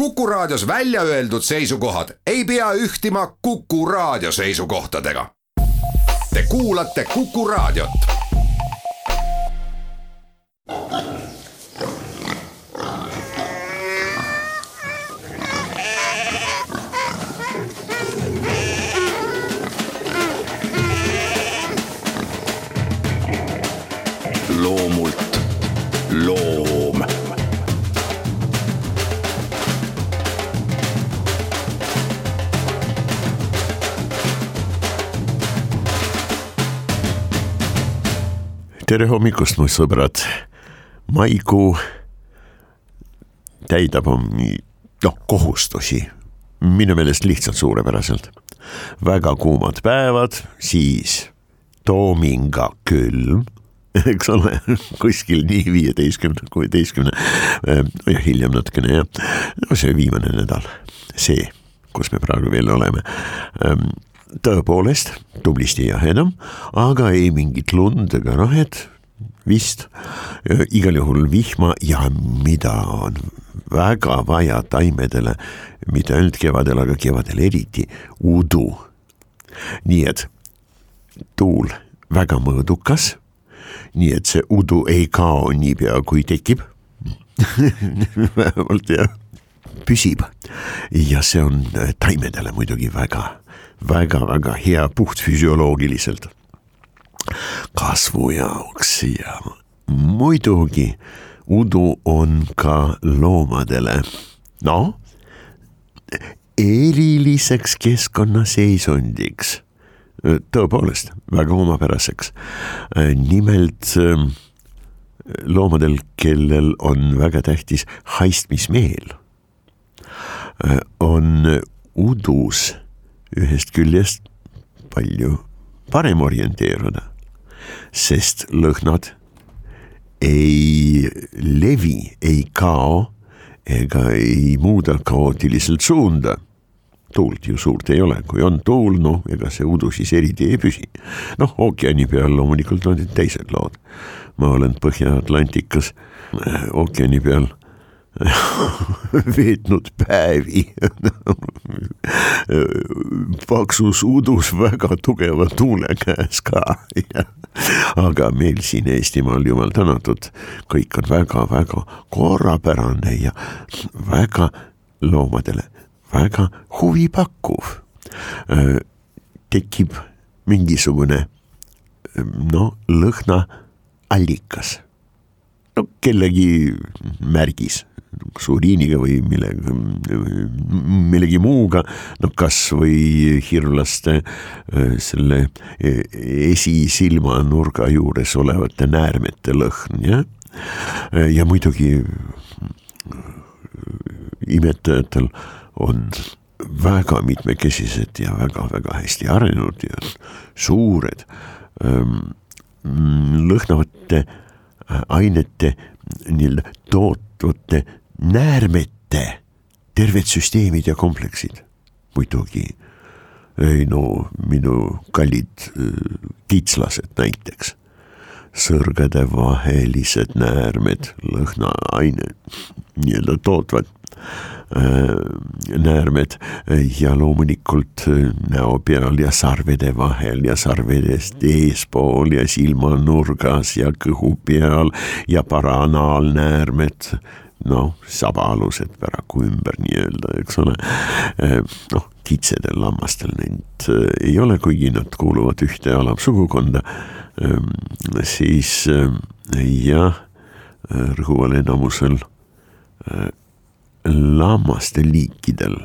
Kuku Raadios välja öeldud seisukohad ei pea ühtima Kuku Raadio seisukohtadega. Te kuulate Kuku Raadiot. Loomult loom. Tere hommikust, mu sõbrad. Maikuu täidab kohustusi. Minu meelest lihtsalt suurepäraselt. Väga kuumad päevad, siis toominga külm, eks ole, kuskil nii 15-16 ja hiljem natukene ja see viimane nädal, see, kus me praegu veel oleme. Tõepoolest, tublisti jahedam, aga ei mingit lund ega rahed, vist igal juhul vihma ja mida on väga vaja taimedele, mitte ainult kevadel, aga kevadel eriti udu. Nii et tuul väga mõõdukas, nii et see udu ei kao niipea kui tekib, vähemalt ja püsib ja see on taimedele muidugi väga hea puhtfüsioloogiliselt kasvu jaoks ja muidugi udu on ka loomadele eriliseks keskkonnaseisundiks, tõepoolest väga omapäraseks. Nimelt loomadel, kellel on väga tähtis haistmismeel, on udus ühest küljest palju parem orienteeruda, sest lõhnad ei levi, ei kao ega ei muuda kaootiliselt suunda. Tuult ju suurt ei ole, kui on tuul, ega see udu siis eriti ei püsi. Ookeani peal loomulikult on teised lood. Ma olen Põhja-Atlantikas ookeani peal veetnud päevi paksus udus väga tugeva tuule käes ka. Aga meil siin Eestimaal jumal tänatud, kõik on väga korrapärane ja väga loomadele väga huvipakkuv. Tekib mingisugune lõhna allikas. Kellegi märgis suuriiniga või millegi muuga, kas või hirvlaste selle esisilma nurga juures olevate näärmete lõhn, ja muidugi imetajatel on väga mitmekesised ja väga hästi arenenud ja suured lõhnavate ainete tootvate näärmete terved süsteemid ja kompleksid. Muidugi minu kallid kitslased näiteks, sõrgade vahelised näärmed, lõhnaaine tootvad näärmed ja loomulikult näo peal ja sarvede vahel ja sarvedest eespool ja silmanurgas ja kõhu peal ja paranaalnäärmed, sabaalused päraku ümber nii-öelda, eks ole. Kitsedel lammastel neid ei ole, kuigi nad kuuluvad ühte alamsugukonda, siis rõhuval enamusel lammaste liikidel,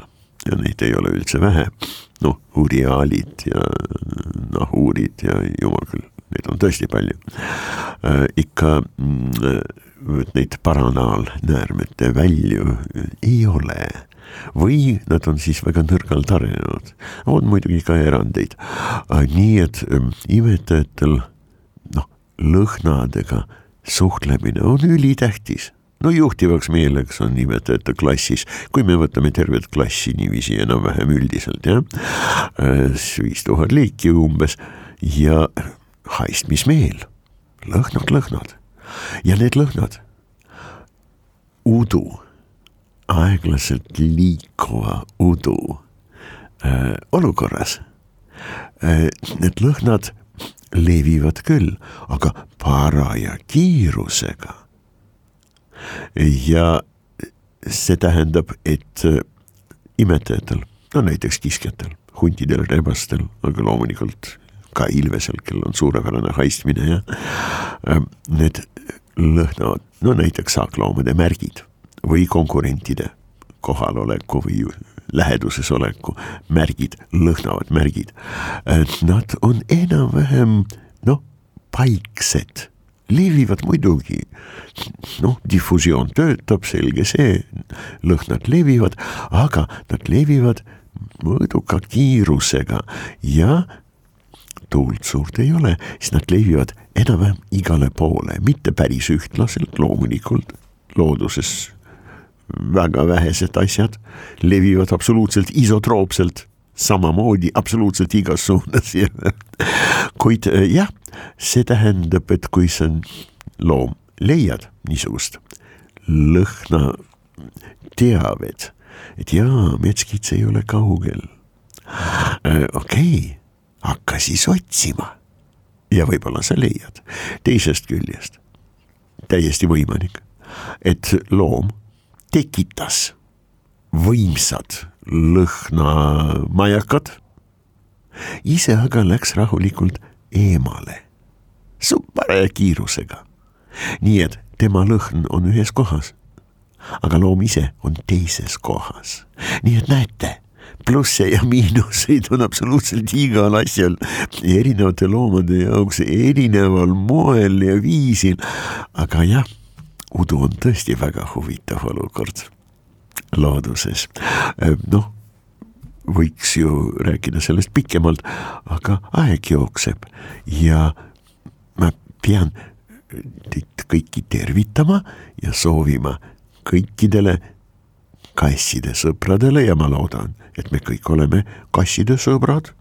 ja neid ei ole üldse vähe, uriaalid ja nahuurid ja jumal küll, neid on tõesti palju. Ikka neid paranaalnäärmete välju ei ole või nad on siis väga nõrgalt arenenud. On muidugi ka erandeid. Nii et imetajatel lõhnadega suhtlemine on ülitähtis. Juhtivaks meeleks on imetajate klassis, kui me võtame tervet klassi niiviisi enam-vähem üldiselt, 5000 liiki umbes ja haistmismeel, lõhnad. Ja need lõhnad, udu aeglaselt liikuva udu olukorras. Need lõhnad levivad küll, aga paraja kiirusega. Ja see tähendab, et imetajatel, no näiteks kiskjatel, huntidel, rebastel, aga loomulikult ka ilvesel, kel on suurepärane haistmine ja need lõhnavad, no näiteks saakloomade märgid või konkurentide kohaloleku või läheduses oleku märgid, lõhnavad märgid. Nad on enam-vähem, paiksed, levivad muidugi. Diffusioon töötab, selge see, lõhnad levivad, aga nad levivad mõõduka kiirusega ja tuult suurt ei ole, siis nad levivad enam-vähem igale poole, mitte päris ühtlaselt, loomulikult looduses väga vähesed asjad levivad absoluutselt isotroopselt, samamoodi absoluutselt igas suunas. Kuid jah, see tähendab, et kui sa loom leiad niisugust lõhna teavet, et metskits ei ole kaugel. Okei, hakka siis otsima ja võib-olla sa leiad. Teisest küljest täiesti võimalik, et loom tekitas võimsad lõhnamajakad, ise aga läks rahulikult eemale, paraja kiirusega. Nii et tema lõhn on ühes kohas, aga loom ise on teises kohas. Nii et näete, plusse ja miinuseid on absoluutselt igal asjal erinevate loomade jaoks erineval moel ja viisil, aga jah, udu on tõesti väga huvitav olukord looduses. Võiks ju rääkida sellest pikemalt, aga aeg jookseb ja ma pean teid kõiki tervitama ja soovima kõikidele kasside sõpradele ja ma loodan, et me kõik oleme kasside sõbrad.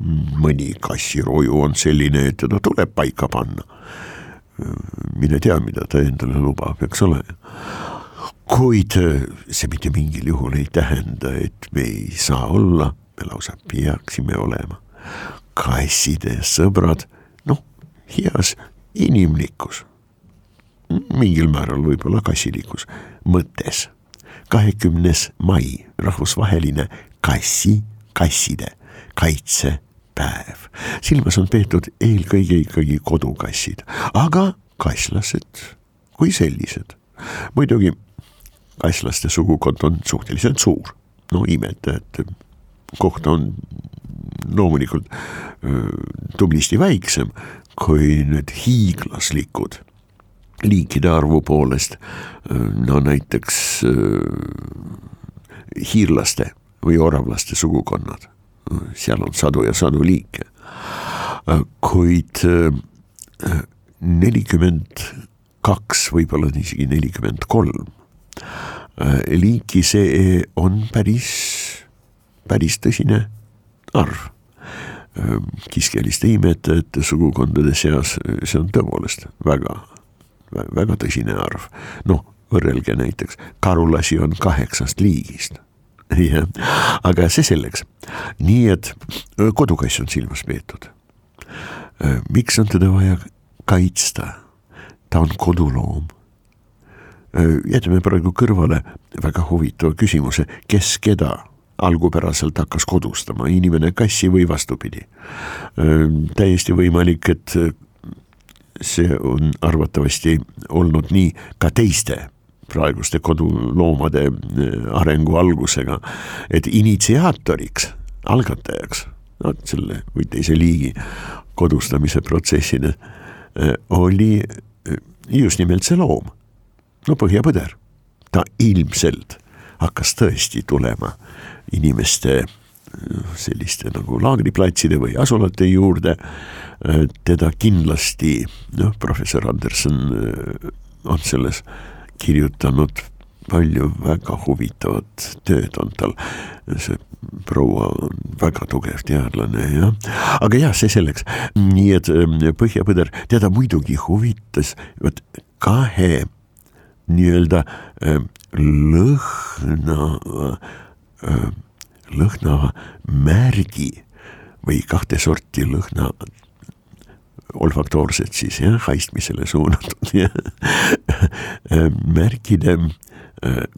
Mõni kassiroju on selline, et teda tuleb paika panna. Mine tea, mida ta endale lubab, eks ole. Kuid see mitte mingil juhul ei tähenda, et me ei saa olla, me lausa peaksime olema kasside sõbrad, heas inimlikkus, mingil määral võib-olla kassilikus mõttes. 20. mai, rahvusvaheline kasside kaitsepäev. Silmas on peetud eelkõige ikkagi kodukassid, aga kasslased kui sellised. Muidugi kasslaste sugukond on suhteliselt suur. Imetajate koht on loomulikult tublisti väiksem kui need hiiglaslikud liikide arvu poolest, näiteks hiirlaste või oravlaste sugukonnad. Seal on sadu ja sadu liike. Kuid 42, võib-olla isegi 43 liiki see on päris tõsine arv. Kiskjaliste imetajate sugukondade seas see on tõepoolest väga tõsine arv. Võrrelge näiteks, karulasi on 8 liigist. Ja, aga see selleks. Nii et kodukass on silmas peetud. Miks on teda vaja kaitsta? Ta on koduloom. Jätame praegu kõrvale väga huvitava küsimuse, kes keda algupäraselt hakkas kodustama, inimene kassi või vastupidi. Täiesti võimalik, et see on arvatavasti olnud nii ka teiste praeguste koduloomade arengu algusega, et initsiaatoriks, algatajaks, selle või teise liigi kodustamise protsessina oli just nimelt see loom, põhjapõder. Ta ilmselt hakkas tõesti tulema inimeste selliste nagu laagriplatside või asulate juurde. Teda kindlasti, professor Anderson on selles kirjutanud palju väga huvitavat tööd on tal. See proua on väga tugev teadlane, jah. Aga jah, see selleks. Nii et põhjapõder, teda muidugi huvitas 2 nii-öelda lõhnava märgi või kahte sorti lõhna olfaktoorset siis haistmisele suunatud märkide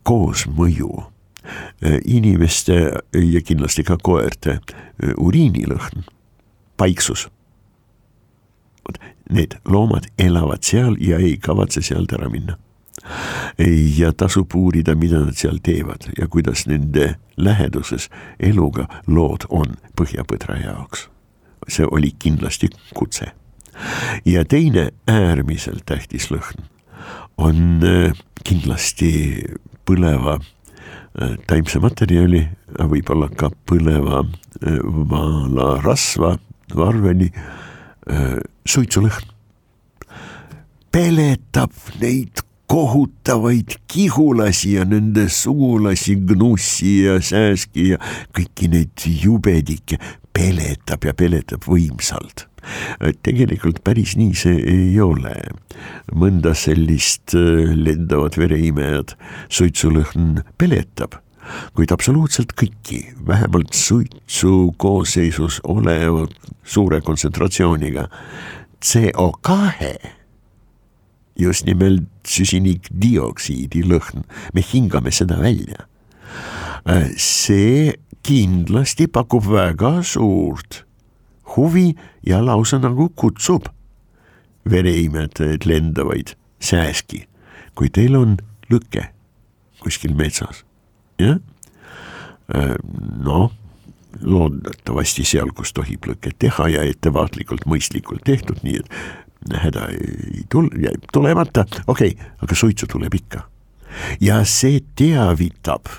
koosmõju inimeste ja kindlasti ka koerte uriinilõhn, paiksus. Need loomad elavad seal ja ei kavatse sealt ära minna. Ja tasub uurida, mida nad seal teevad ja kuidas nende läheduses eluga lood on põhjapõdra jaoks. See oli kindlasti kutse. Ja teine äärmiselt tähtis lõhn on kindlasti põleva taimse materjali, võib-olla ka põleva vaalarasva, varveni suitsulõhn. Peletab neid kohutavaid kihulasi ja nende sugulasi, gnussi ja sääski ja kõiki neid jubedikke peletab ja peletab võimsalt. Tegelikult päris nii see ei ole. Mõnda sellist lendavat vereimejad suitsulõhn peletab, kuid absoluutselt kõiki, vähemalt suitsu koosseisus olevad suure kontsentratsiooniga CO2, just nimelt süsinikdioksiidi lõhn, me hingame seda välja. See kindlasti pakub väga suurt huvi ja lausa nagu kutsub vereimetajaid lendavaid sääski, kui teil on lõke kuskil metsas. Ja? Loodetavasti seal, kus tohib lõket teha ja ettevaatlikult mõistlikult tehtud, nii et häda ei tulemata, okei, aga suitsu tuleb ikka. Ja see teavitab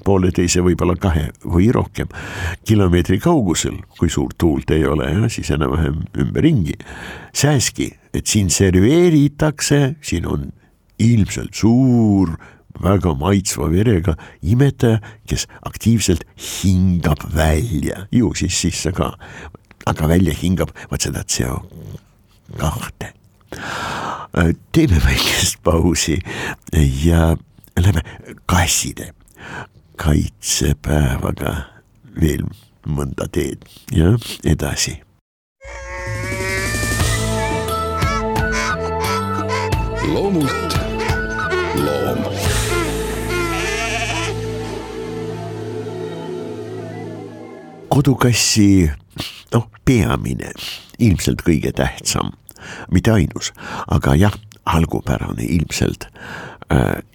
pooleteise võib-olla 2 või rohkem kilomeetri kaugusel, kui suurt tuult ei ole, siis enam-vähem ümberringi. Sääski, et siin serveeritakse, siin on ilmselt suur, väga maitsva verega imetaja, kes aktiivselt hingab välja, ju siis sisse ka, aga välja hingab vaat seda CO2. Teeme väikest pausi ja lähme kasside kaitsepäevaga veel mõnda teed ja edasi. Loomult loom. Kodukassi peamine, ilmselt kõige tähtsam, mitte ainus, aga jah, algupärane ilmselt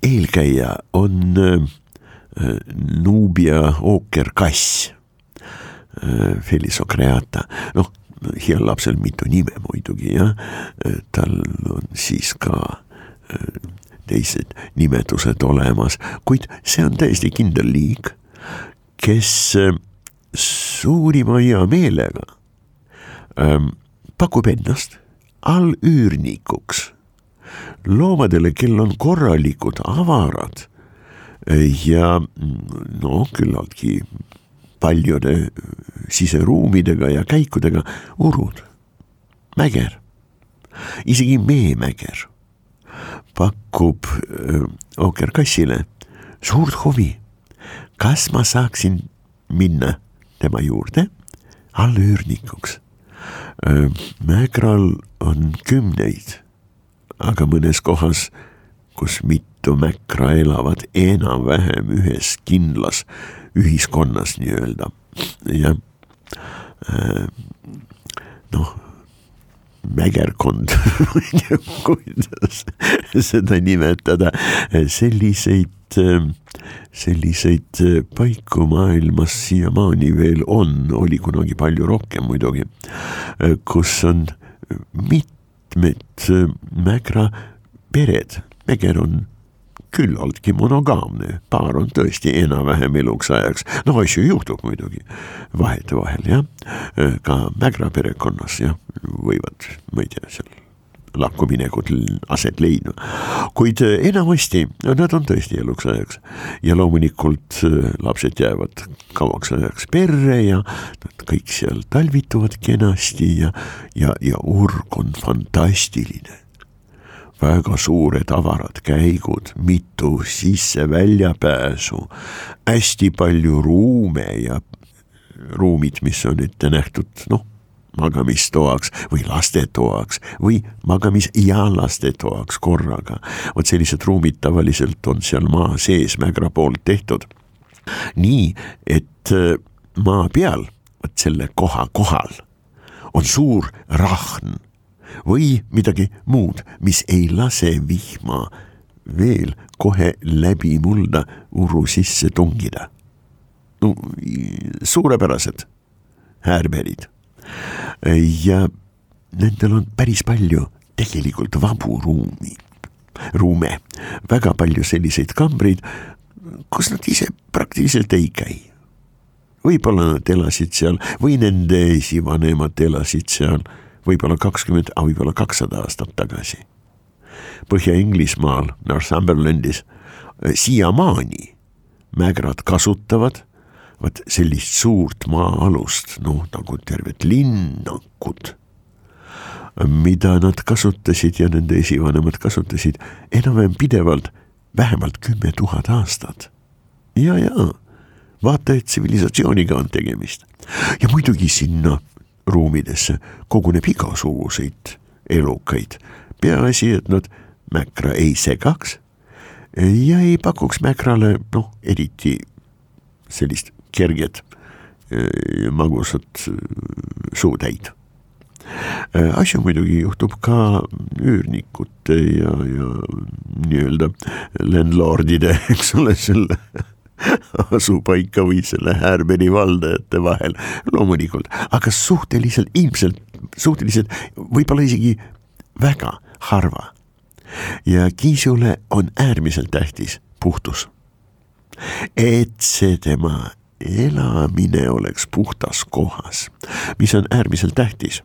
eelkäija on Nubia ookerkass, Felis ocreata. Heal lapsel mitu nime muidugi, ja tal on siis ka teised nimetused olemas, kuid see on täiesti kindel liik, kes suurima hea meelega pakub ennast allüürnikuks loomadele, kel on korralikud avarad ja küllaltki paljude siseruumidega ja käikudega urud, mäger, isegi meemäger pakub ookerkassile suurt huvi, kas ma saaksin minna tema juurde allüürnikuks. Mägral on 10, aga mõnes kohas, kus mitu mäkra elavad enam-vähem ühes kindlas ühiskonnas nii-öelda. Ja mägerkond, kuidas seda nimetada, selliseid paiku maailmas siiamaani veel on, oli kunagi palju rohkem muidugi, kus on mitmed mägra pered. Mäger on küllaltki monogaamne, paar on tõesti enam-vähem eluks ajaks. Asju juhtub muidugi vahetevahel, jah. Ka mägra perekonnas, jah, võivad, ma ei tea, seal lakkuminekud aset leidma. Kuid enamasti nad on tõesti eluks ajaks ja loomulikult lapsed jäävad kauaks ajaks perre ja nad kõik seal talvituvad kenasti ja urg on fantastiline. väga suured avarad käigud, mitu sisse-väljapääsu, hästi palju ruume ja ruumid, mis on ette nähtud, magamistoaks või lastetoaks või magamis- ja lastetoaks korraga. Vot sellised ruumid tavaliselt on seal maa sees Mägra poolt tehtud. Nii, et maa peal, vot selle koha kohal, on suur rahn või midagi muud, mis ei lase vihma veel kohe läbi mulda uru sisse tungida. Suurepärased häärberid. Ja nendel on päris palju tegelikult vabu ruume, väga palju selliseid kambreid, kus nad ise praktiliselt ei käi. Võib-olla nad elasid seal või nende esivanemad elasid seal võib-olla 20, võib-olla 200 aastat tagasi. Põhja-Inglismaal, Northumberlandis, siiamaani mägrad kasutavad sellist suurt maa-alust, nagu tervet linnakut, mida nad kasutasid ja nende esivanemad kasutasid enam-vähem pidevalt vähemalt 10 000 aastat. Ja, vaata, et tsivilisatsiooniga on tegemist. Ja muidugi sinna ruumidesse koguneb igasuguseid elukaid. Peaasi, et nad Mäkra ei segaks ja ei pakuks Mäkrale, eriti sellist kerget magusat suutäid. Asju muidugi juhtub ka üürnikute ja nii-öelda landlordide, eks ole, selle asupaika või selle Härberi valdajate vahel loomulikult, aga suhteliselt võib-olla isegi väga harva. Ja Kiisule on äärmiselt tähtis puhtus. Et see tema elamine oleks puhtas kohas, mis on äärmiselt tähtis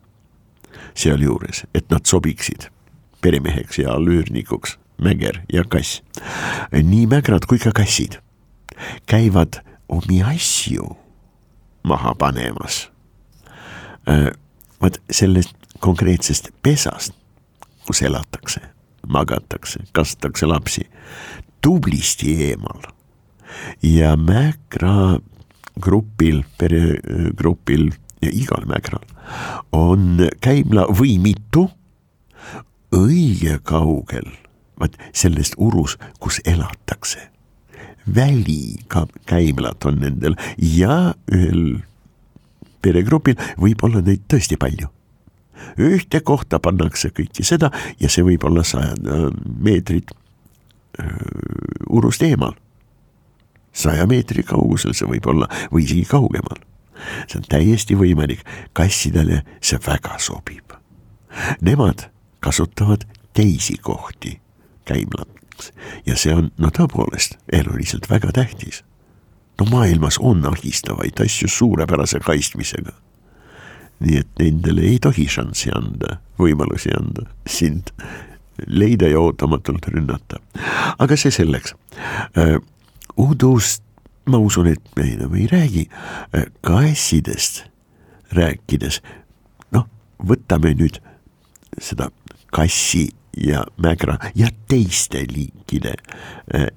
sealjuures, et nad sobiksid peremeheks ja allüürnikuks, mäger ja kass. Nii mägrad kui ka kassid käivad omi asju maha panemas. Vaat sellest konkreetsest pesast, kus elatakse, magatakse, kastatakse lapsi, tublisti eemal. Ja Mägra grupil, peregrupil ja igal Mägral on käimla või mitu õige kaugel sellest urus, kus elatakse. Välikäimlad on nendel ja ühel peregrupil võib olla neid tõesti palju. Ühte kohta pannakse kõiki seda ja see võib olla 100 meetrit urust eemal. 100 meetri kaugusel see võib olla või isegi kaugemal. See on täiesti võimalik, kassidele see väga sobib. Nemad kasutavad teisi kohti käimlaks ja see on tõepoolest eluliselt väga tähtis. Maailmas on ahistavaid asju suurepärase kaistmisega. Nii et nendele ei tohi šanssi anda, võimalusi anda, sind leida ja ootamatult rünnata. Aga see selleks. Udust ma usun, et me enam ei räägi. Kassidest rääkides, võtame nüüd seda kassi ja mägra ja teiste liikide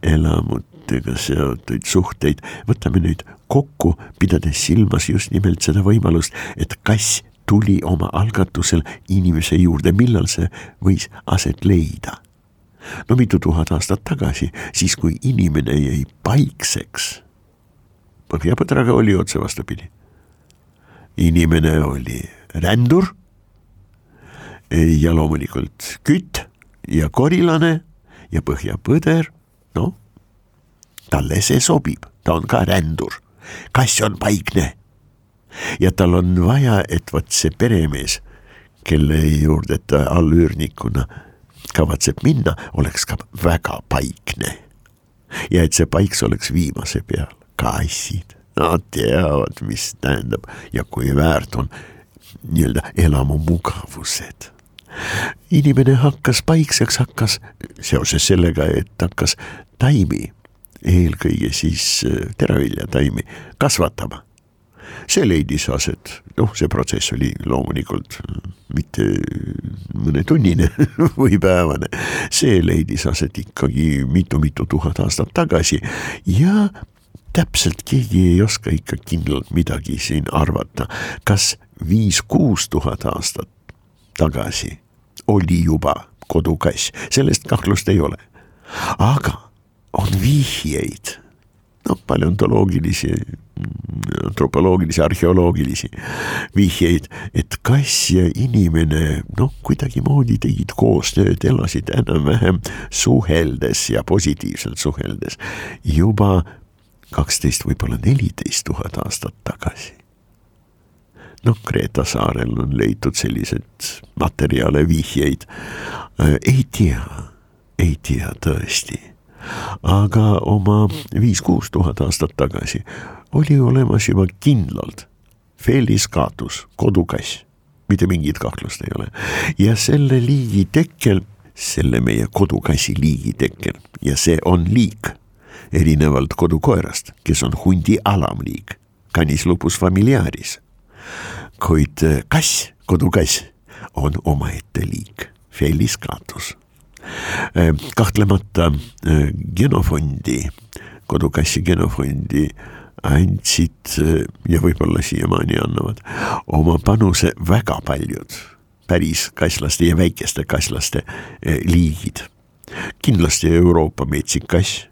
elamutega seotud suhteid. Võtame nüüd kokku, pidades silmas just nimelt seda võimalust, et kass tuli oma algatusel inimese juurde, millal see võis aset leida. Mitu tuhat aastat tagasi, siis kui inimene jäi paikseks. Põhjapõdraga oli otse vastupidi. Inimene oli rändur ja loomulikult kütt ja korilane ja põhjapõder, talle see sobib, ta on ka rändur. Kass on paikne ja tal on vaja, et see peremees, kelle juurde ta allüürnikuna kavatseb minna, oleks ka väga paikne ja et see paiks oleks viimase peal. Kassid, nad teavad, mis tähendab ja kui väärt on nii-öelda elamu mugavused. Inimene hakkas paikseks, seoses sellega, et hakkas taimi, eelkõige siis teraviljataimi kasvatama. see leidis aset, see protsess oli loomulikult mitte mõne tunnine või päevane, see leidis aset ikkagi mitu tuhat aastat tagasi ja täpselt keegi ei oska ikka kindlalt midagi siin arvata, kas 5-6 tuhat aastat tagasi oli juba kodukass, sellest kahtlust ei ole, aga on vihjeid, paleontoloogilisi, antropoloogilisi, arheoloogilisi vihjeid, et kass ja inimene kuidagi moodi tegid koostööd, elasid enam-vähem suheldes ja positiivselt suheldes juba 12, võib-olla 14 tuhat aastat tagasi. Kreeta saarel on leitud sellised materjale, vihjeid, ei tea tõesti. Aga oma 5-6 tuhat aastat tagasi oli olemas juba kindlalt Felis catus, kodukass, mitte mingit kahtlust ei ole. Ja selle liigi tekkel, selle meie kodukassi liigi tekkel, ja see on liik, erinevalt kodukoerast, kes on hundi alamliik, Canis lupus familiaris. Kuid kass, kodukass, on omaette liik, Felis catus. Kahtlemata genofondi, kodukassi genofondi andsid ja võib-olla siiamaani annavad oma panuse väga paljud päris kasslaste ja väikeste kasslaste liigid. Kindlasti Euroopa metsikass,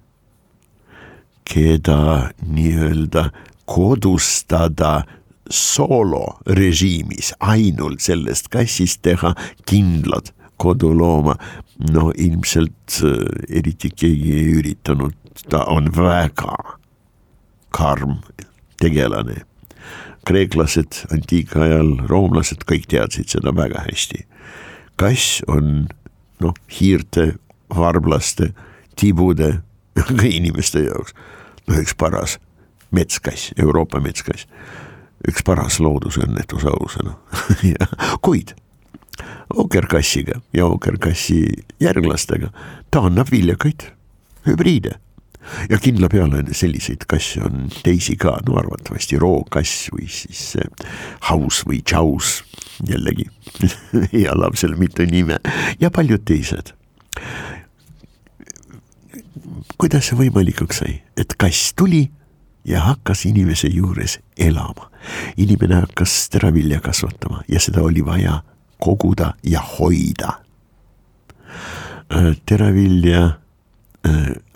keda nii-öelda kodustada solo režiimis, ainult sellest kassist teha kindlad kodulooma, ilmselt eriti keegi ei üritanud, ta on väga karm tegelane. Kreeklased antiikajal, roomlased, kõik teadsid seda väga hästi. Kass on hiirte, varblaste, tibude, ka inimeste jaoks üks paras metskass, Euroopa metskass, üks paras loodusõnnetus ausana. Kuid ookerkassiga ja ookerkassi järglastega ta annab viljakaid hübriide. Ja kindla peale selliseid kasse on teisi ka, arvatavasti rookass või siis haus või tšaus, jällegi ja lapsel mitu nime ja paljud teised. Kuidas see võimalikuks sai, et kass tuli ja hakkas inimese juures elama. Inimene hakkas teravilja kasvatama ja seda oli vaja koguda ja hoida. Teravilja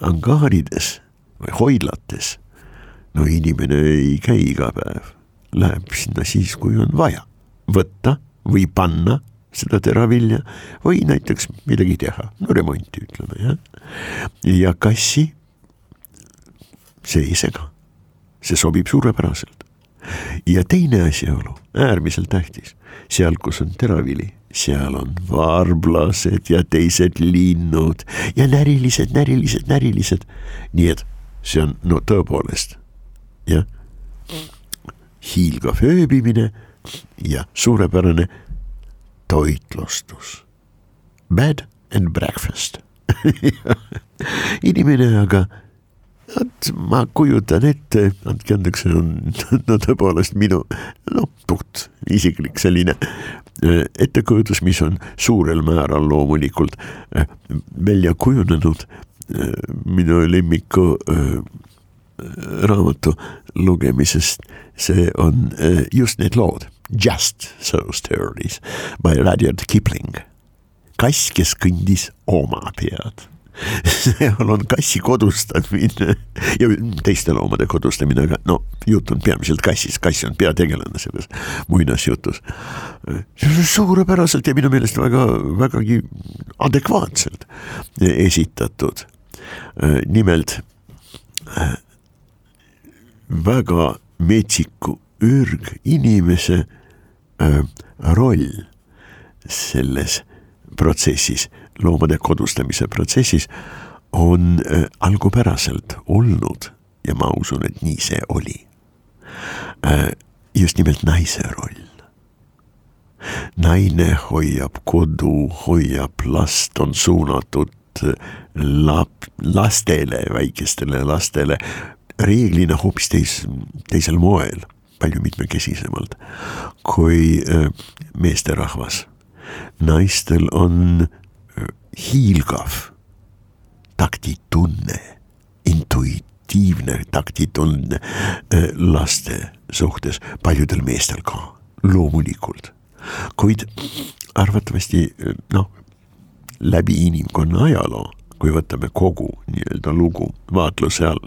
angaarides või hoidlates, inimene ei käi iga päev, läheb sinna siis, kui on vaja võtta või panna seda teravilja või näiteks midagi teha, remonti ütleme, ja kassi see ei sega, see sobib suurepäraselt. Ja teine asjaolu, äärmiselt tähtis, seal kus on teravili, seal on varblased ja teised linnud ja närilised. Nii et see on tõepoolest hiilgav ööbimine ja suurepärane toitlustus. Bed and breakfast. Inimene aga, ma kujutan ette, andke andeks, see on tõepoolest minu puht isiklik selline ettekujutus, mis on suurel määral loomulikult välja kujunenud minu lemmiku raamatu lugemisest. See on just need lood, Just So Stories by Rudyard Kipling. Kass, kes kõndis oma pead. Seal on kassi kodustamine ja teiste loomade kodustamine, aga jutt on peamiselt kassis, kass on peategelane selles muinasjutus. Suurepäraselt ja minu meelest vägagi adekvaatselt esitatud. Nimelt väga metsiku ürginimese roll selles protsessis, loomade kodustamise protsessis on algupäraselt olnud ja ma usun, et nii see oli. Just nimelt naise roll. Naine hoiab kodu, hoiab last, on suunatud lastele, väikestele lastele, reeglina hoopis teisel moel. palju mitmekesisemalt kui meesterahvas. Naistel on hiilgav taktitunne, intuitiivne taktitunne laste suhtes, paljudel meestel ka, loomulikult. Kuid arvatavasti läbi inimkonna ajaloo, kui võtame kogu nii-öelda lugu vaatluse all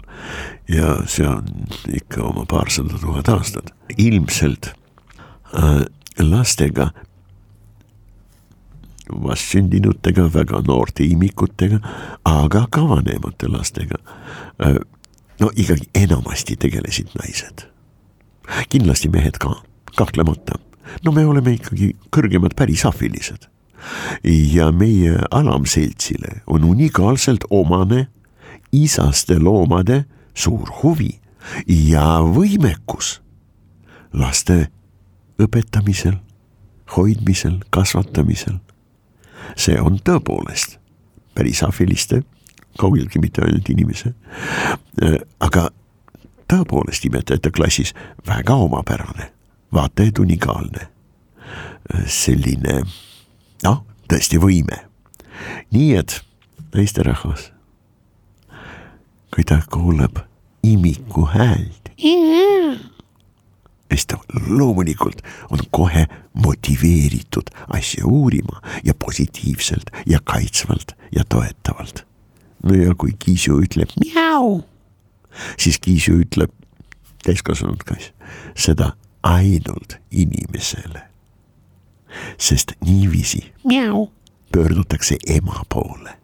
ja see on ikka oma 200 000 aastat, ilmselt lastega, vastsündinutega, väga noorte imikutega, aga ka vanemate lastega, ikkagi enamasti tegelesid naised. Kindlasti mehed ka, kahtlemata. Me oleme ikkagi kõrgemad pärisafilised. Ja meie alamseltsile on unikaalselt omane isaste loomade suur huvi ja võimekus laste õpetamisel, hoidmisel, kasvatamisel. See on tõepoolest pärisafiliste, kaugeltki mitte ainult inimese, aga tõepoolest imetajate klassis väga omapärane, vaata et unikaalne, selline tõesti võime. Nii et naisterahvas, kui ta kuuleb imiku häält, siis ta loomulikult on kohe motiveeritud asja uurima ja positiivselt ja kaitsvalt ja toetavalt. Ja kui Kiisu ütleb mjau, siis Kiisu ütleb täiskasvanud kass seda ainult inimesele. Sest niiviisi pöördutakse ema poole.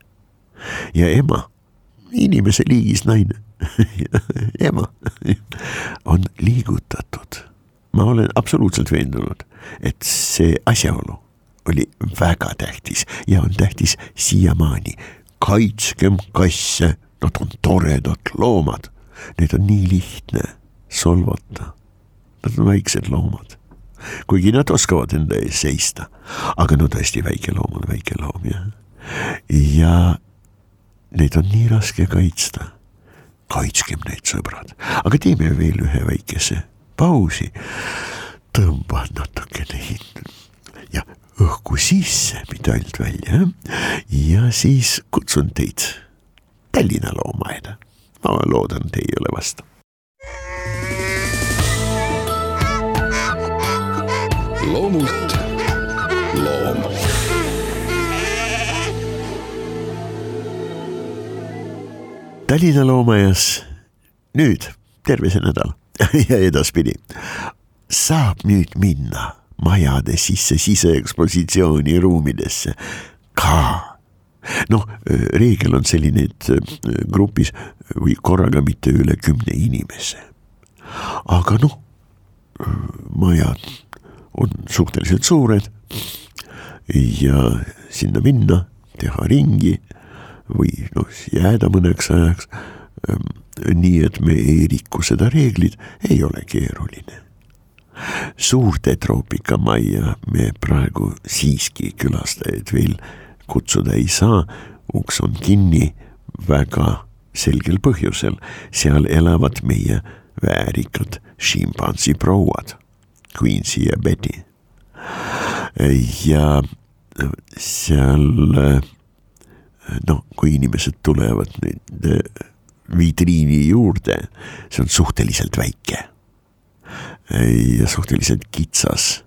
Ja ema, inimese liigis naine, ema on liigutatud. Ma olen absoluutselt veendunud, et see asjaolu oli väga tähtis ja on tähtis siiamaani. Kaitskem kasse, nad on toredad loomad. Need on nii lihtne solvata. Nad on väiksed loomad. Kuigi nad oskavad enda ees seista, aga tõesti väike loom on väike loom, jah. Ja neid on nii raske kaitsta. Kaitskem neid, sõbrad. Aga teeme veel ühe väikese pausi. Tõmba natukene ja õhku sisse, mitte ainult välja. Ja siis kutsun teid Tallinna loomaaeda. Ma loodan, te ei ole vastu. Loomult loom. Tallinna loomaaias nüüd terve see nädal ja edaspidi saab nüüd minna majade sisse siseekspositsiooni ruumidesse ka. Reegel on selline, et grupis või korraga mitte üle 10 inimese. Aga majad on suhteliselt suured ja sinna minna, teha ringi või jääda mõneks ajaks, nii et me ei riku seda reeglid, ei ole keeruline. Suurte troopikamajja me praegu siiski külastajaid veel kutsuda ei saa, uks on kinni väga selgel põhjusel, seal elavad meie väärikad šimpansi prouad. Quincy ja Betty. Ja seal, kui inimesed tulevad nüüd vitriini juurde, see on suhteliselt väike ja suhteliselt kitsas.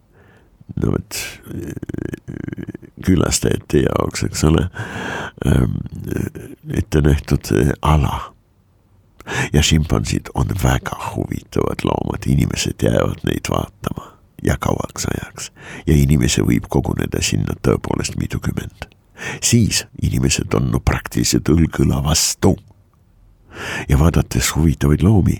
Külastajate jaoks, eks ole, ette nähtud ala. Ja šimpansid on väga huvitavad loomad, inimesed jäävad neid vaatama ja kauaks ajaks ja inimese võib koguneda sinna tõepoolest mitukümmend. Siis inimesed on praktiliselt õlgõla vastu ja vaadates huvitavaid loomi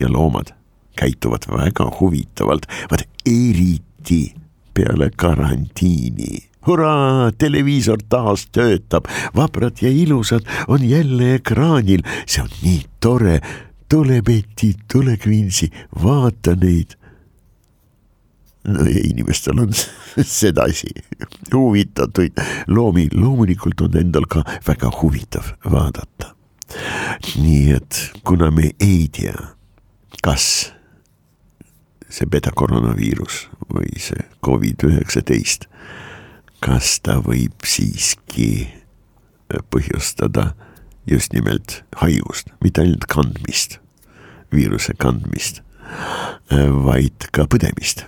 ja loomad käituvad väga huvitavalt, vaid eriti peale karantiini. Hurraa, televiisor taas töötab, vabrad ja ilusad on jälle ekraanil, see on nii tore, tule Betty, tule Quincy, vaata neid. Inimestel on sedasi huvitatuid loomi, loomulikult on endal ka väga huvitav vaadata. Nii et kuna me ei tea, kas see beta-koroonaviirus või see COVID-19, kas ta võib siiski põhjustada just nimelt haigust, mitte ainult kandmist, viiruse kandmist, vaid ka põdemist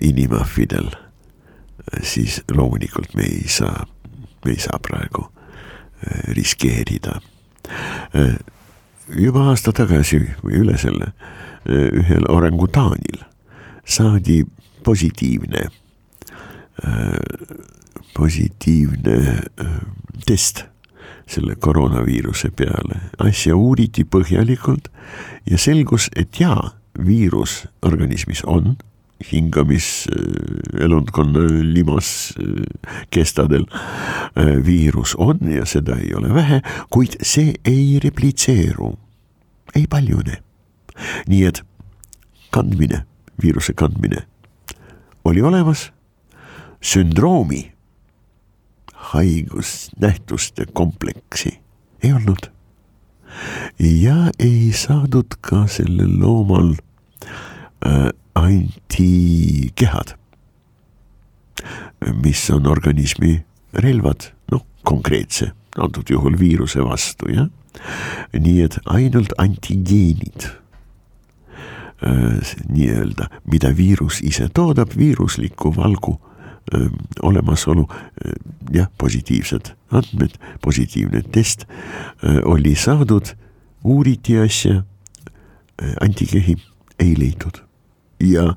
inimahvidel, siis loomulikult me ei saa praegu riskeerida. Juba aasta tagasi või üle selle ühel orangutaanil saadi positiivne test selle koroonaviiruse peale. Asja uuriti põhjalikult ja selgus, et jaa, viirus organismis on, hingamiselundkonna limas kestadel viirus on ja seda ei ole vähe, kuid see ei replitseeru, ei paljune. Nii et viiruse kandmine oli olemas, sündroomi, haigusnähtuste kompleksi ei olnud ja ei saadud ka sellel loomal antikehad, mis on organismi relvad, konkreetse, antud juhul viiruse vastu, jah. Nii et ainult antigeenid, nii-öelda, mida viirus ise toodab, viirusliku valgu olemasolu, jah, positiivsed andmed, positiivne test oli saadud, uuriti asja, antikehi ei leidnud ja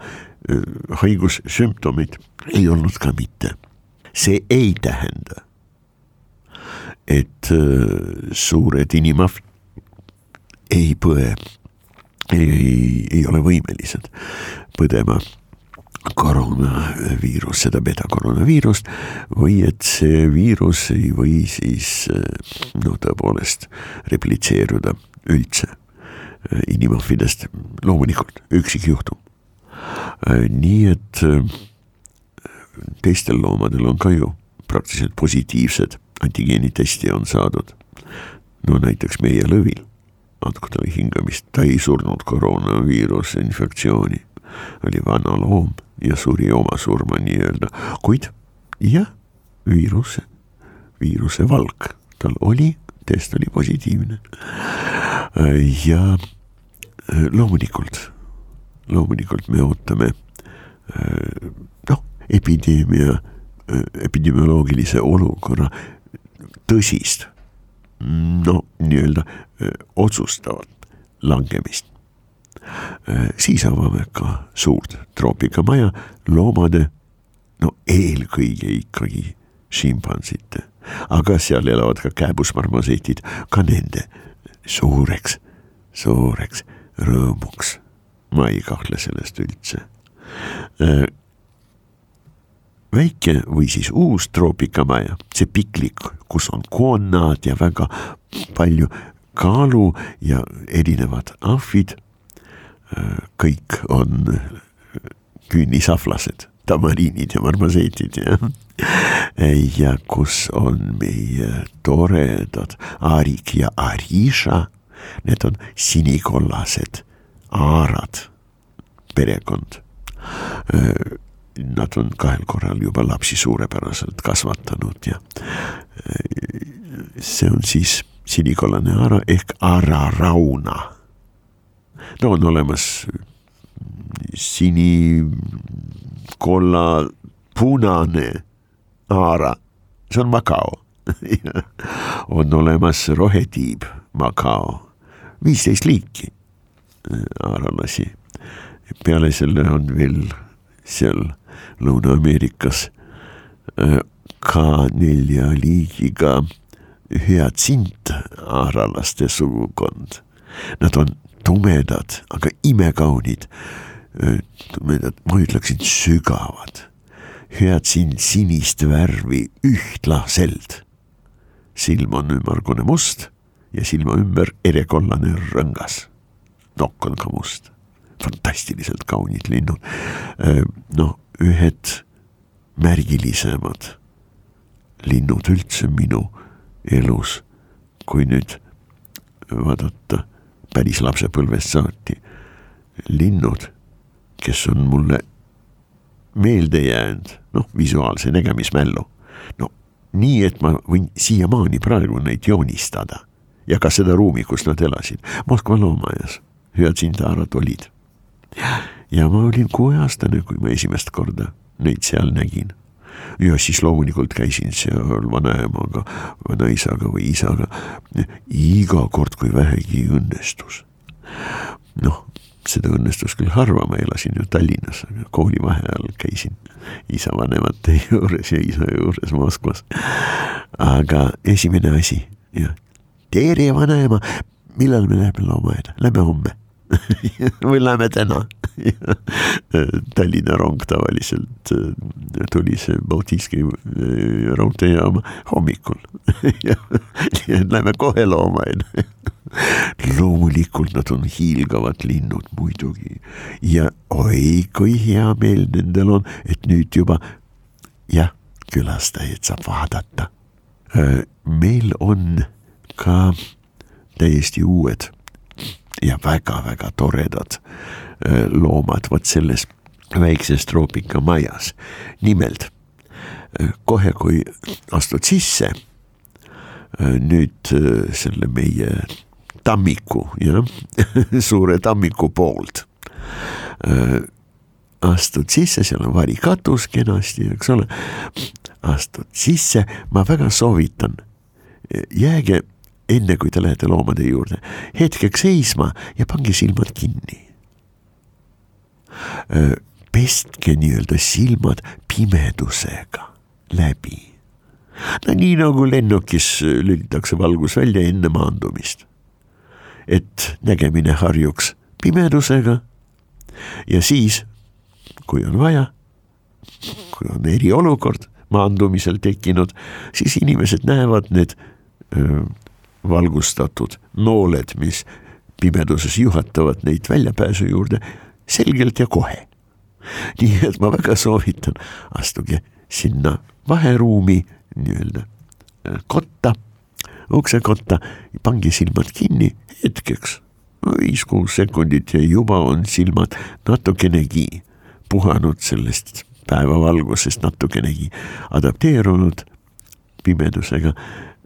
haigussümptomid ei olnud ka mitte. See ei tähenda, et suured inimahvid ei põe, ei ole võimelised põdema koroonaviirus, seda beta-koroonaviirust, või et see viirus ei või siis tõepoolest replitseeruda üldse inimahvidest, loomulikult üksikjuhtum. Nii et teistel loomadel on ka ju praktiliselt positiivsed antigeenitesti on saadud. Näiteks meie lõvil, andku talle hingamist, ta ei surnud koroonaviiruse infektsiooni, oli vana loom ja suri oma surma nii-öelda, kuid jah, viiruse valk tal oli, test oli positiivne ja loomulikult me ootame epidemioloogilise olukorra tõsist, nii-öelda otsustavat langemist. Siis avame ka suurt troopikamaja loomade, eelkõige ikkagi šimpansite, aga seal elavad ka kääbusmarmosetid, ka nende suureks rõõmuks. Ma ei kahtle sellest üldse. Väike või siis uus troopikamaja, see piklik, kus on koonnaad ja väga palju kaalu ja erinevad ahvid, kõik on künnisahvlased, tamariinid ja marmoseetid ja kus on meie toredad Arik ja Arisha, need on sinikollased aarad, perekond. Nad on 2 korral juba lapsi suurepäraselt kasvatanud ja see on siis sinikollane aara ehk aararauna. On olemas sinikolla punane aara, see on Makao. On olemas rohetiib Makao, 15 liiki aaralasi. Peale selle on veel seal Lõuna-Ameerikas ka 4 liigiga hüatsint aaralaste sugukond. Nad on tumedad, aga imekaunid, ma ütleksin sügavad. Hüatsint sinist värvi ühtlaselt. Silm on ümmargune must ja silma ümber erekollane rõngas. Nokk on ka must. Fantastiliselt kaunid linnud. Ühed märgilisemad linnud üldse minu elus, kui nüüd vaadata päris lapsepõlvest saati. Linnud kes on mulle meelde jäänud, visuaalse nägemismällu. Nii, et ma võin siiamaani praegu neid joonistada ja ka seda ruumi, kus nad elasid. Moskva loomaajas, Hüatsintaarad olid. Ja ma olin 6-aastane, kui ma esimest korda neid seal nägin. Ja siis loomulikult käisin seal vanaemaga, vanaisaga või isaga iga kord, kui vähegi õnnestus. Seda õnnestus küll harva, ma elasin ju Tallinnas, aga kooli vaheajal käisin isa vanemate juures ja isa juures Moskvas. Aga esimene asi, tere vanaema, millal me läheme loomaaeda? Lähme homme või lähme täna? Tallinna rong tavaliselt tuli see Baltiiski raudteejaama hommikul. Lähme kohe loomaaeda. Loomulikult nad on hiilgavad linnud muidugi ja oi, kui hea meel nendel on, et nüüd juba külastajaid saab vaadata. Meil on ka täiesti uued ja väga-väga toredad loomad võt selles väikses troopikamajas. Nimelt, kohe kui astud sisse, nüüd selle meie tammiku, suure tammiku poolt astud sisse, seal on varikatus kenasti, eks ole, astud sisse, ma väga soovitan, jääge enne kui te lähete loomade juurde, hetkeks seisma ja pange silmad kinni. Pestke nii-öelda silmad pimedusega läbi. Nii nagu lennukis lülitakse valgus välja enne maandumist. Et nägemine harjuks pimedusega ja siis, kui on vaja, kui on eriolukord maandumisel tekkinud, siis inimesed näevad need valgustatud nooled, mis pimeduses juhatavad neid väljapääsu juurde selgelt ja kohe. Nii et ma väga soovitan, astuge sinna vaheruumi nii-öelda kotta, uksekotta, pange silmad kinni hetkeks, 5-6 sekundit ja juba on silmad natukenegi puhanud sellest päevavalgusest, natukenegi adapteerunud pimedusega.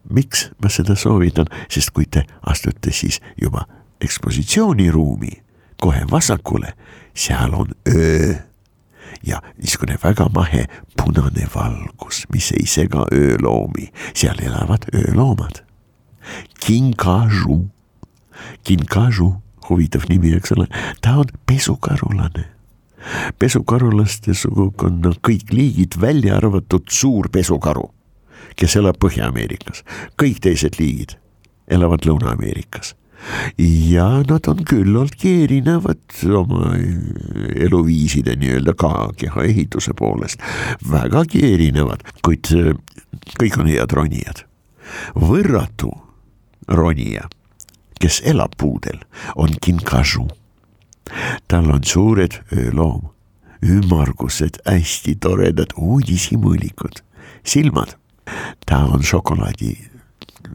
Miks ma seda soovitan? Sest kui te astute siis juba ekspositsiooniruumi kohe vasakule, seal on öö ja niisugune väga mahe punane valgus, mis ei sega ööloomi. Seal elavad ööloomad. Kinkaju. Kinkaju, huvitav nimi, eks ole. Ta on pesukarulane. Pesukarulaste sugukonna kõik liigid välja arvatud suur pesukaru, kes elab Põhja-Ameerikas. Kõik teised liigid elavad Lõuna-Ameerikas. Ja nad on küllaltki erinevad oma eluviiside nii-öelda ka keha ehituse poolest. Vägagi erinevad, kuid kõik on head ronijad. Võrratu ronija, kes elab puudel, on kinkaju. Tal on suured ööloom, ümmargused, hästi toredad uudishimõlikud, silmad. Ta on šokolaadi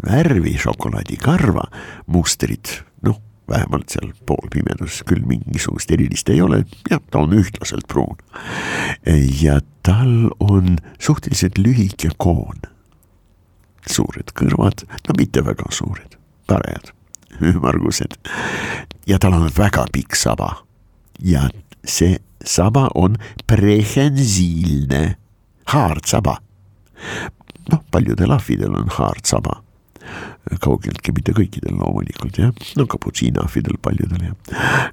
värvi, šokolaadikarva, mustrid, vähemalt seal poolpimedus küll mingisugust erilist ei ole, ta on ühtlaselt pruun. Ja tal on suhteliselt lühike koon, suured kõrvad, mitte väga suured, parajad, ümmargused. Ja tal on väga pikk saba ja see saba on prehensiilne, haardsaba. Paljudel ahvidel on haardsaba. Kaugeltki mitte kõikidel loomulikult, kaputsiinahvidel paljudel,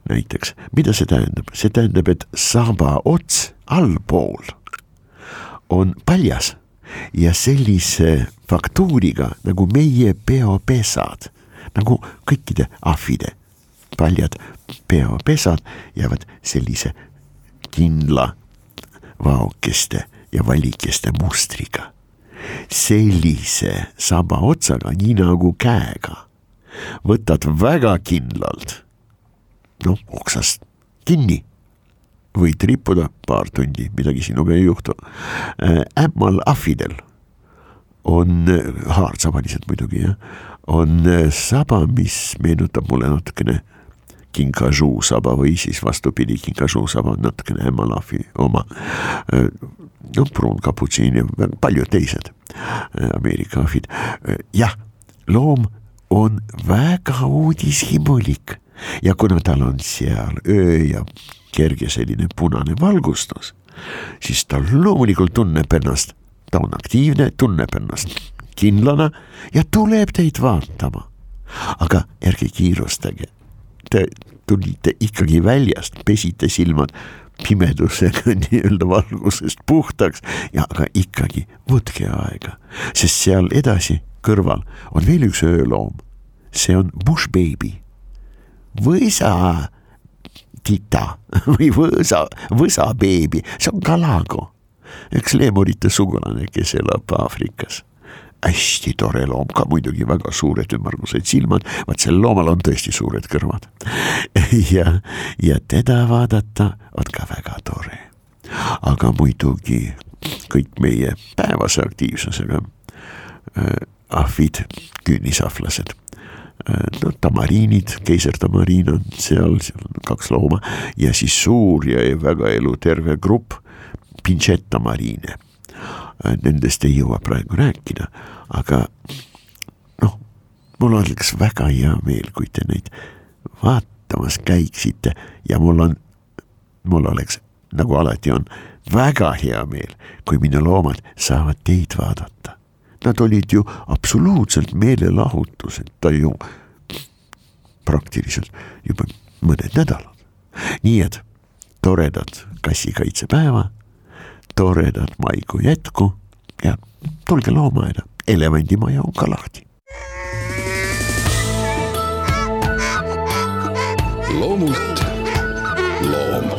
näiteks. Mida see tähendab? See tähendab, et saba ots allpool on paljas ja sellise faktuuriga nagu meie peopesad, nagu kõikide ahvide paljad peopesad jäävad sellise kindla vaokeste ja valikeste mustriga. Sellise saba otsaga, nii nagu käega, võtad väga kindlalt, oksast kinni, võid rippuda paar tundi, midagi sinuga ei juhtu. Ämmal ahvidel on haardsabalised muidugi, on saba, mis meenutab mulle natukene kinkajuu saba või siis vastupidi, kinkajuu saba on natukene Hemalafi oma, no pruun kaputsiin ja paljud teised Ameerika ahvid. Jah, loom on väga uudishimulik ja kuna tal on seal öö ja kerge selline punane valgustus, siis ta loomulikult tunneb ennast, ta on aktiivne, tunneb ennast kindlana ja tuleb teid vaatama. Aga ärge kiirustage, te tulite ikkagi väljast, pesite silmad pimedusega nii-öelda valgusest puhtaks ja aga ikkagi võtke aega, sest seal edasi kõrval on veel üks ööloom. See on bush baby, võsa tita või võsa beebi, see on kalago, üks leemurite sugulane, kes elab Aafrikas. Hästi tore loom, ka muidugi väga suured ümmargused silmad, vaat sel loomal on tõesti suured kõrvad. ja teda vaadata on ka väga tore. Aga muidugi kõik meie päevase aktiivsusega ahvid, küünisahvlased, no tamariinid, keisertamariin on seal on 2 looma ja siis suur ja väga eluterve grupp pinčettamariine. Nendest ei jõua praegu rääkida, aga noh, mul oleks väga hea meel, kui te neid vaatamas käiksite ja mul oleks, nagu alati on, väga hea meel, kui minu loomad saavad teid vaadata. Nad olid ju absoluutselt meelelahutused, ta ju praktiliselt juba mõned nädalad. Nii et toredad kassikaitsepäeva, toredad maikuu jätku ja tulge loomaaeda, elevandimaja on ka lahti. Loomult loom.